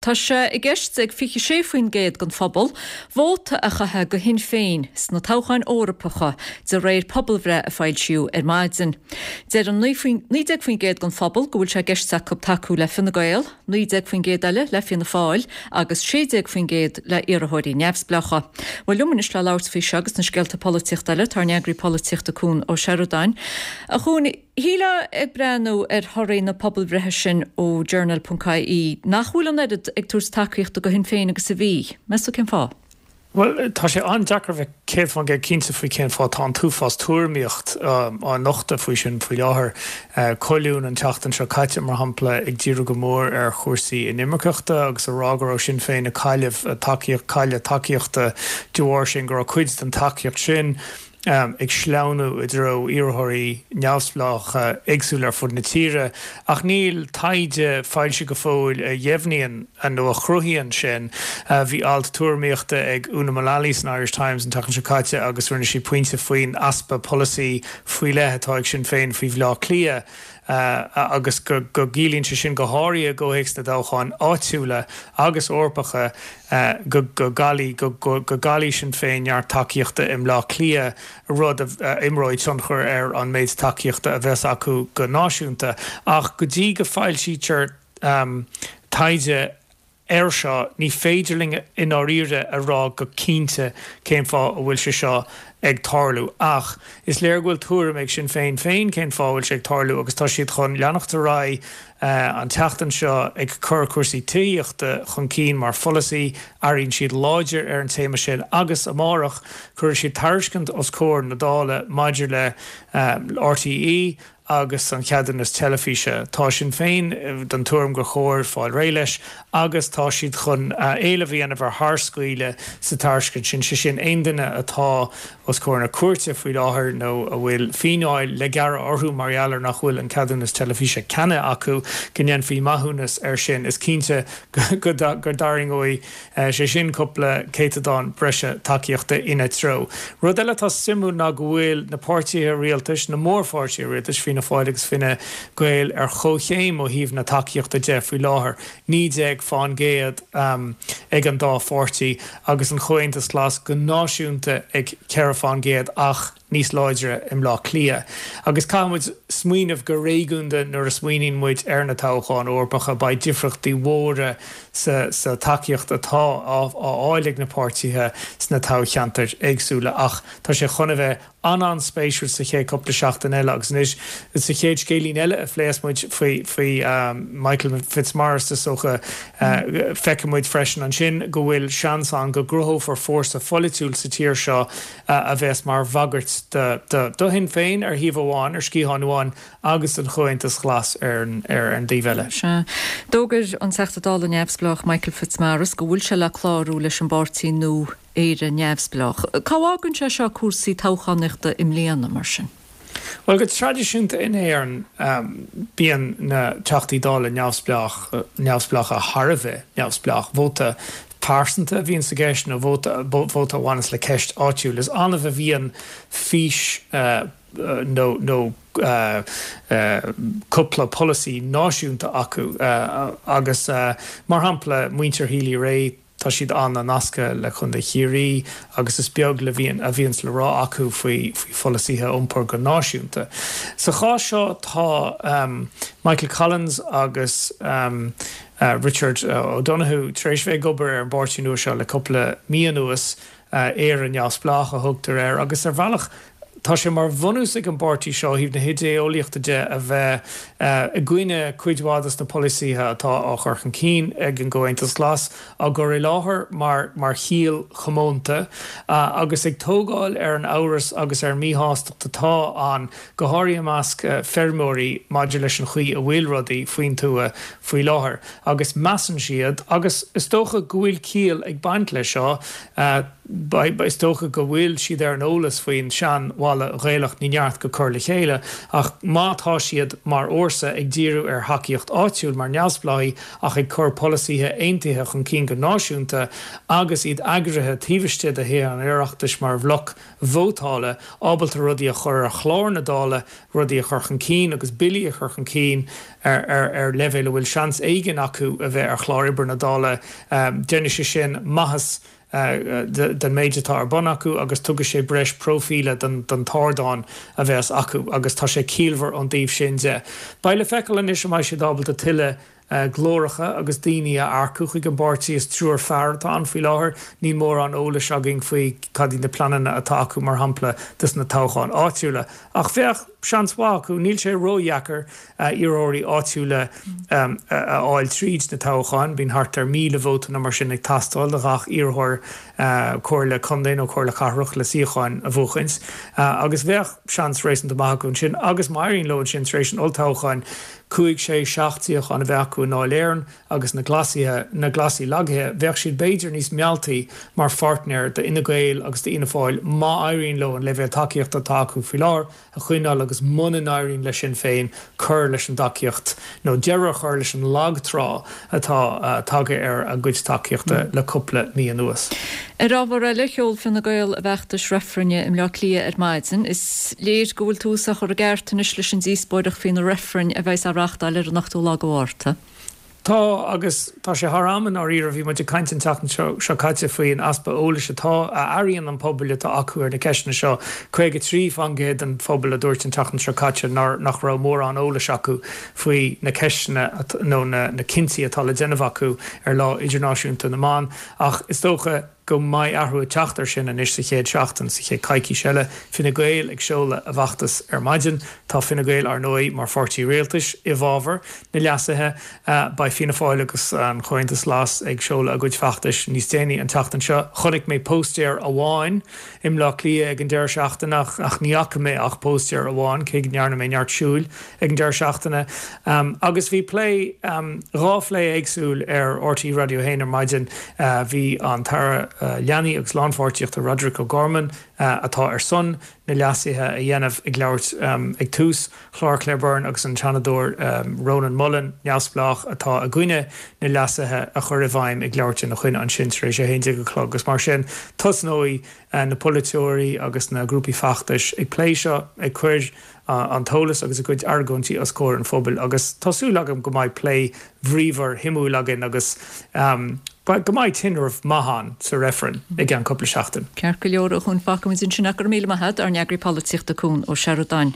Tá sé i gceist ag 26% den phobal vóta a chaitheamh do Shinn Féin sna toghcháin Eorpacha, de réir pobalbhreith a foilsíodh ar maidin. Deir 19% den phobal go bhfuil sé i gceist acu tacú le Fine Gael, 19% eile le Fianna Fáil agus 16% le iarrthóirí neamhspleácha. Bhuel, liom anois le labhairt faoi seo agus na scéalta polaitíochta eile, tá ár n-eagraí polaitíochta Cuan Ó Seireadáin. A Chuain, Shílfeá ag breathnú ar thorthaí na pobalbhreithe sin ó Journal ponc ie nach bhfuil an oiread ag tabhairt tacaíochta do Shinn Féin agus a bhí. Meas tú cén fáth? Bhuel, tá sé an-deacair a bheith 100% cinnte faoi cén fáth. Tá an t-uafás tuairimíocht á nochtadh faoi sin faoi láthair. Colún an tseachtain seo caite, mar shampla, ag díriú go mór ar chúrsaí inimirceachta agus a rá go raibh Sinn Féin ag cailleadh tacaíocht, cailleadh tacaíochta de bharr sin, go raibh cuid den tacaíocht sin ag sleamhnú i dtreo iarrthóirí neamhspleácha éagsúla ar fud na tíre, ach níl taighde foilsithe go fóill a dheimhníonn nó a chruthaíonn sin. Bhí alt tuairimíochta ag Una Mullally san Irish Times an tseachtain seo caite agus rinne sí pointe faoin easpa polasaí faoi leith atá ag Sinn Féin faoi Bhleá Cliath agus go gciallaíonn sé sin, go háirithe i gcomhthéacs na dtoghchán áitiúla agus Eorpacha, go gcaillfidh go gcaillfidh Sinn Féin neart tacaíochta i mBleá Cliath, rud a imreoidh tionchar ar an méid tacaíochta a bheas acu go náisiúnta. Ach go dtí go foilsítear taighde air seo, ní féidir linn i ndáiríre a rá go cinnte cén fáth a bhfuil sé seo ag tarlú. Ach is léir go bhfuil tuairim ag Sinn Féin féin cén fáth a bhfuil sé ag tarlú agus tá siad chun leanacht ar aghaidh an tseachtain seo ag cur cúrsaí tithíochta chun cinn mar pholasaí. Airíonn siad láidir ar an téama sin agus amárach cuirfidh siad tairiscint os comhair na Dála maidir le RTÉ agus an ceadúnas teilifíse. Tá Sinn Féin den tuairim gur chóir fáil réidh leis agus tá siad chun éileamh a dhéanamh ar tharscaoileadh sa tairiscint sin, sé sin, aon duine atá os comhair na cúirte faoi láthair nó a bhfuil fíneáil le gearradh orthu mar gheall ar nach bhfuil an ceadúnas teilifíse ceannaithe acu, go ndéanfaí maithiúnas air sin. Is cinnte go dtarraingeoidh sé sin cúpla céatadán breise tacaíochta ina treo. Rud eile atá suimiúil ná go bhfuil na páirtithe rialtais, na mórpháirtithe rialtais, Fianna Fáil agus Fine Gael, ar chomhchéim ó thaobh na tacaíochta de faoi láthair, 19 fán gcéad ag an dá pháirtí, agus an Chomhaontas Glas go náisiúnta ag 4 fán gcéad ach. níos láidre i mBleá Cliath. Agus caithfidh muid smaoineamh go réigiúnda nuair a smaoiníonn muid ar na toghcháin Eorpacha. Beidh difríochtaí mhóra sa sa tacaíocht atá á fháil ag na páirtithe sna toghcheantair éagsúla ach tá sé chun a bheith an-an-spéisiúil sa chéad cúpla seachtain eile agus anois sa chéad scéilín eile a phléas muid faoi faoi Michael Fitzmaurice is dócha feicfidh muid freisin ansin go bhfuil seans ann go gcruthófar fórsa pholaitiúil sa tír seo a bheas mar bhagairt do Shinn Féin ar thaobh amháin, ar sciathán amháin, agus don Chomhaontas Glas ar an dtaobh eile. Sea. D'fhógair an Teachta Dála neamhspleách Michael Fitzmaurice go bhfuil sé le clárú leis an bpáirtí nua Éire Neamhspleách. Cá bhfágann sé seo cúrsaí toghchánaíochta i mbliana, mar sin? Bhuel, go traidisiúnta in Éirinn, bíonn na Teachtaí Dála neamhspleácha thar a bheith neamhspleách. Vóta pearsanta a bhíonn i gceist nó vóta vóta a bhaineas le ceist áitiúil. Is annamh a bhíonn fís nó nó cúpla polasaí náisiúnta acu agus, mar shampla, muintir Healy-Rae, Tá siad an-nasctha le Contae Chiarraí agus is beag le bhíonn a bhíonns le rá acu faoi faoi pholasaithe iompair go náisiúnta. Sa chás seo tá Michael Collins agus Richard O'Donoghue tar éis bheith ag obair ar an bpáirtí nua seo le cúpla mí anuas. Éire Neamhspleách a thugtar air agus ar bhealach tá sé mar bhunús ag an bpáirtí seo ó thaobh na hidé-eolaíochta de a bheith i gcoinne cuid mhaith dos na polasaithe atá á chur chun cinn ag an gComhaontas Glas, á gcur i láthair mar mar chiall chomónta agus ag tógáil ar an amhras agus ar an míshástacht atá ann, go háirithe i measc feirmeoirí maidir leis an chaoi a bhfuil rudaí faoin tuath faoi láthair. Agus measann siad, agus is dócha go bhfuil ciall ag baint leis seo. Is dócha go bhfuil siad ar an eolas faoin sean-mhalla Ghaelach ní neart go cur le chéile ach má tá siad mar fhórsa ag díriú ar thacaíocht áitiúil mar neamhspleáigh ach ag cur polasaithe aontaithe chun cinn go náisiúnta agus iad eagraithe taobh istigh de Thithe an Oireachtais mar bhloc vótála, ábalta rudaí a chur ar chlár na Dála, rudaí a chur chun cinn agus billí a chur chun cinn ar leibhéal a bhfuil seans éigin acu a bheith ar chlár oibre na Dála, déanfaidh sé sin maitheas den méid atá ar bun acu agus tugfaidh sé breis próifíle don t-ardán a bheas acu agus tá sé ciallmhar ón dtaobh sin de. Beidh le feiceáil anois an mbeidh siad ábalta tuilleadh glóracha agus daoine a earcú chuig an bpáirtí. Is triúr fear atá ann faoi láthair. Níl mórán eolais againn faoi cad iad na pleananna atá acu, mar shampla, dos na toghcháin áitiúla. Ach bheadh seans mhaith acu. Níl sé ródheacair iarrthóirí áitiúla a fháil tríd na toghcháin. Bíonn thart ar 1,000 vóta nó mar sin ag teastáil do ghach iarrthóir comhairle contae nó comhairle cathrach le suíocháin a bhuachaint. Agus bheadh seans réasúnta maith acu ansin. Agus má éiríonn leo ansin tar éis an olltoghcháin, cúig, sé, seacht suíochán a bheith acu i nDáil Éireann agus na Glasaithe, na Glasaigh lagaithe, bheadh siad b'fhéidir níos mealltaí mar pháirtnéir d'Fhine Gael agus d'Fhianna Fáil má éiríonn leo an leibhéal tacaíochta atá acu faoi láthair a choinneáil agus muna n-éiríonn le Sinn Féin cur leis an dtacaíocht nó deireadh a chur leis an lag trá atá tagtha ar a gcuid tacaíochta le cúpla mí anuas. Ar ábhar eile, sheol Fine Gael a bhfeachtas reifrinn i mBleá Cliath ar maidin. Is léir go bhfuil tús á chur i gceart anois leis an díospóireacht faoi na reifrinn a bheas á reáchtáil ar an ochtú lá de Mhárta. Tá, agus tá sé thar am i ndáiríre. Bhí muid ag caint an tseachtain seo caite faoi an easpa eolais atá, a airíonn an pobal atá acu ar na ceisteanna seo. 53% den phobal a dúirt an tseachtain seo caite nár, nach raibh mórán eolais acu faoi na ceisteanna nó na cinntí atá le déanamh acu ar Lá Idirnáisiúnta na mBan. Ach is dócha go mbeidh athrú ag teacht air sin anois sa chéad seachtain, sa chéad coicís eile. Fine Gael ag seoladh a bhfeachtas ar maidin. Tá Fine Gael, ar ndóigh, mar pháirtí rialtais i bhfabhar na leasuithe. Beidh Fianna Fáil agus an Comhaontas Glas ag seoladh a gcuid feachtais níos déanaí an tseachtain seo. Chonaic mé póstaer amháin i mBleá Cliath ag an deireadh seachtaine ach ní fhaca mé ach póstaer amháin, cé go ndearna mé neart siúil. ag an deireadh seachtaine agus bhí plé, dhá phlé éagsúil ar RTÉ Raidió 1 ar maidin. Bhí an tAire Leanaí agus Lánpháirtíochta Roderic O'Gorman, atá ar son na leasuithe a dhéanamh, ag labhairt ag tús chlár Claire Byrne agus an Seanadóir Rónán Mullen, neamhspleách, atá i gcoinne na leasuithe a chur i bhfeidhm ag labhairt ina choinne ansin tar éis 11 a chlog agus mar sin tosnóidh na polaiteoirí agus na grúpaí feachtais ag plé seo, ag cur an t-eolas agus a gcuid argóintí os comhair an phobail agus tá súil agam go mbeidh plé bríomhar shuimiúil againn agus go mbeidh tinreamh maith ann sa reifreann i gceann cúpla seachtain. Ceart go leor, a Chúin, fágfaimid ansin é. Go raibh míle maith agat, ár n-eagraí polaitíochta Cuan Ó Seireadáin.